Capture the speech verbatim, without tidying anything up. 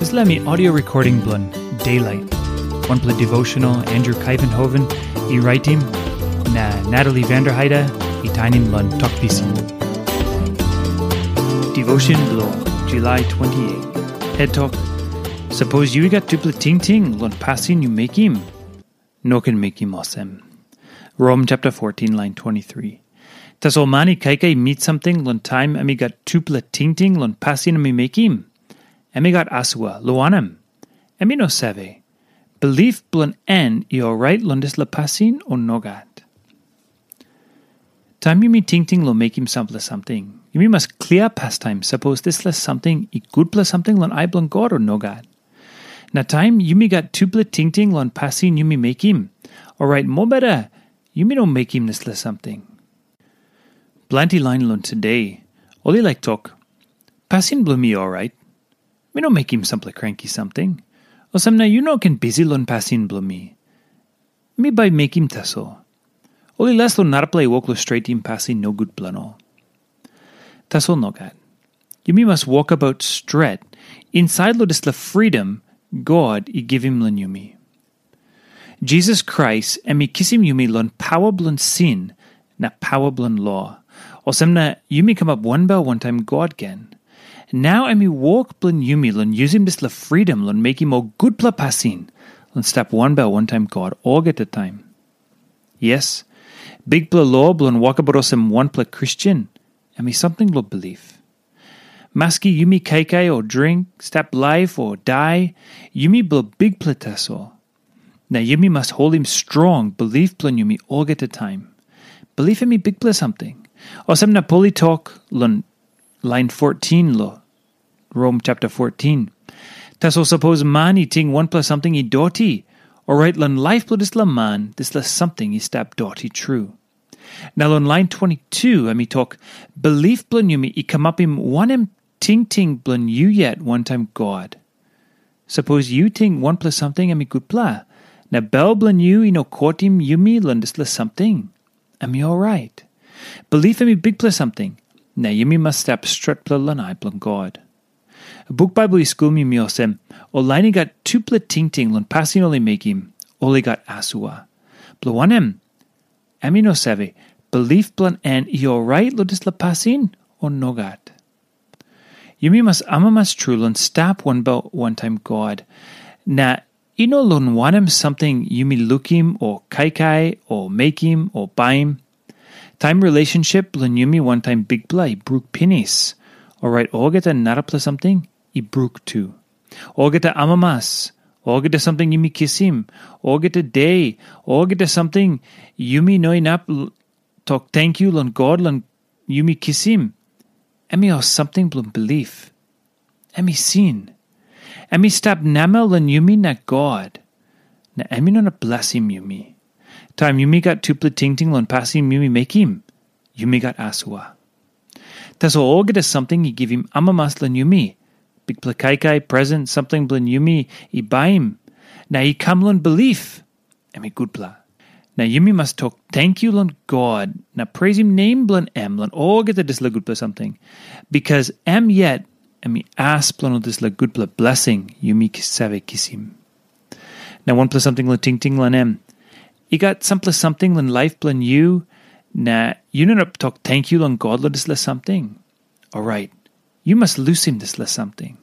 Dispela mi audio recording bilong Daylight. Wanpela devotional Andrew Kaivenhoven i raitim, na Natalie Vanderheide i tainim long Tok Pisin. Devotion bilong July twenty-eight. Het tok, sapos yu i gat tupela tingting long pasin yu mekim, no ken mekim olsem. Rom chapter fourteen, line twenty-three. Tasol man i kaikai mit samting long taim em i gat tupela tingting long pasin em i mekim, em i gat asua, lo wanem, em i no save, bilip bilong en i orait long dispela pasin o nogat. Taim yumi tingting long mekim sampela samting, yumi mas klia pastaim sapos dispela samting i gutpela samting long ai bilong God o nogat. Na taim yumi gat tupela tingting long pasin yumi mekim, orait mobeta yumi no mekim dispela samting. Planti lain long today, ol i laik tok, pasin bilong mi orait, mi no mekim sampela kranki samting. Olsem na yu no ken bisi long pasin bilong mi. Mi bai mekim tasol. Ol i las long narapela i wok long stretim pasin nogut bilong ol. Tasol nogat. Yumi mas wokabaut stret insait long dispela fridom God i givim long yumi. Jisas Krais em i kisim yumi long pawa bilong sin na pawa bilong lo. Olsem na yumi kamap wanbel wantaim God gen. Nau em i wok bilong yumi long yusim dispela fridom long mekim ol gutpela pasin, long stap wanbel wantaim God olgeta taim. Yes, bikpela lo bilong wokabaut olsem wanpela Kristen, em i samting long bilip. Maski yumi kaikai o dring, stap laip o dai, yumi bilong bikpela tasol. Na yumi mas holim strong bilip bilong yumi olgeta taim. Bilip em i bikpela samting. Olsem na Pol i tok long lain fourteen long Rom chapter fourteen. Tasol sapos man i ting wanpela samting i doti, orait long laip bilong dispela man, dispela samting i stap doti tru. Na long lain twenty-two em i tok, bilip bilong yumi i kamapim wanem tingting bilong yu yet wantaim God. Sapos yu ting wanpela samting em i gutpela, na bel bilong yu i no kotim yumi long dispela samting, em i orait. Bilip em i bikpela samting, na yumi mas stap stretpela long ai bilong God. Buk Baibel i skulim yumi olsem, ol lain i gat tupela tingting long pasin ol i mekim, ol i gat asua. Bilong wanem, em i no save, bilip bilong en i orait long dispela pasin o nogat. Yumi mas amamas tru long stap wanbel wantaim God, na i no long wanem samting yumi lukim o kaikai o mekim o baim. Taim relationship bilong yumi wantaim Bikpela i bruk pinis, orait olgeta narapela samting i bruk tu. Olgeta amamas, olgeta samting yumi kisim, olgeta de, olgeta samting yumi no inap l-, tok tenkyu long God long yumi kisim, em i ol samting bilong bilip. Em i sin. Em i stap namel long yumi na God, na em i no inap blesim yumi. Taim yumi gat tupela tingting long pasin yumi mekim, yumi gat asua. Tasol olgeta samting i givim amamas long yumi, bikpela kaikai, present, samting bilong yumi i baim, na i kam long bilip, em i gutpela. Na yumi mas tok tenkyu long God na preisim nem bilong em long olgeta dispela gutpela samting, bikas em yet em i as bilong ol dispela gutpela blesing yumi ki-, save kisim. Na wanpela samting long tingting long em, i gat sampela samting long laip bilong yu, na yu no inap tok tenkyu long God long dispela samting. Orait, yu mas lusim dispela samting.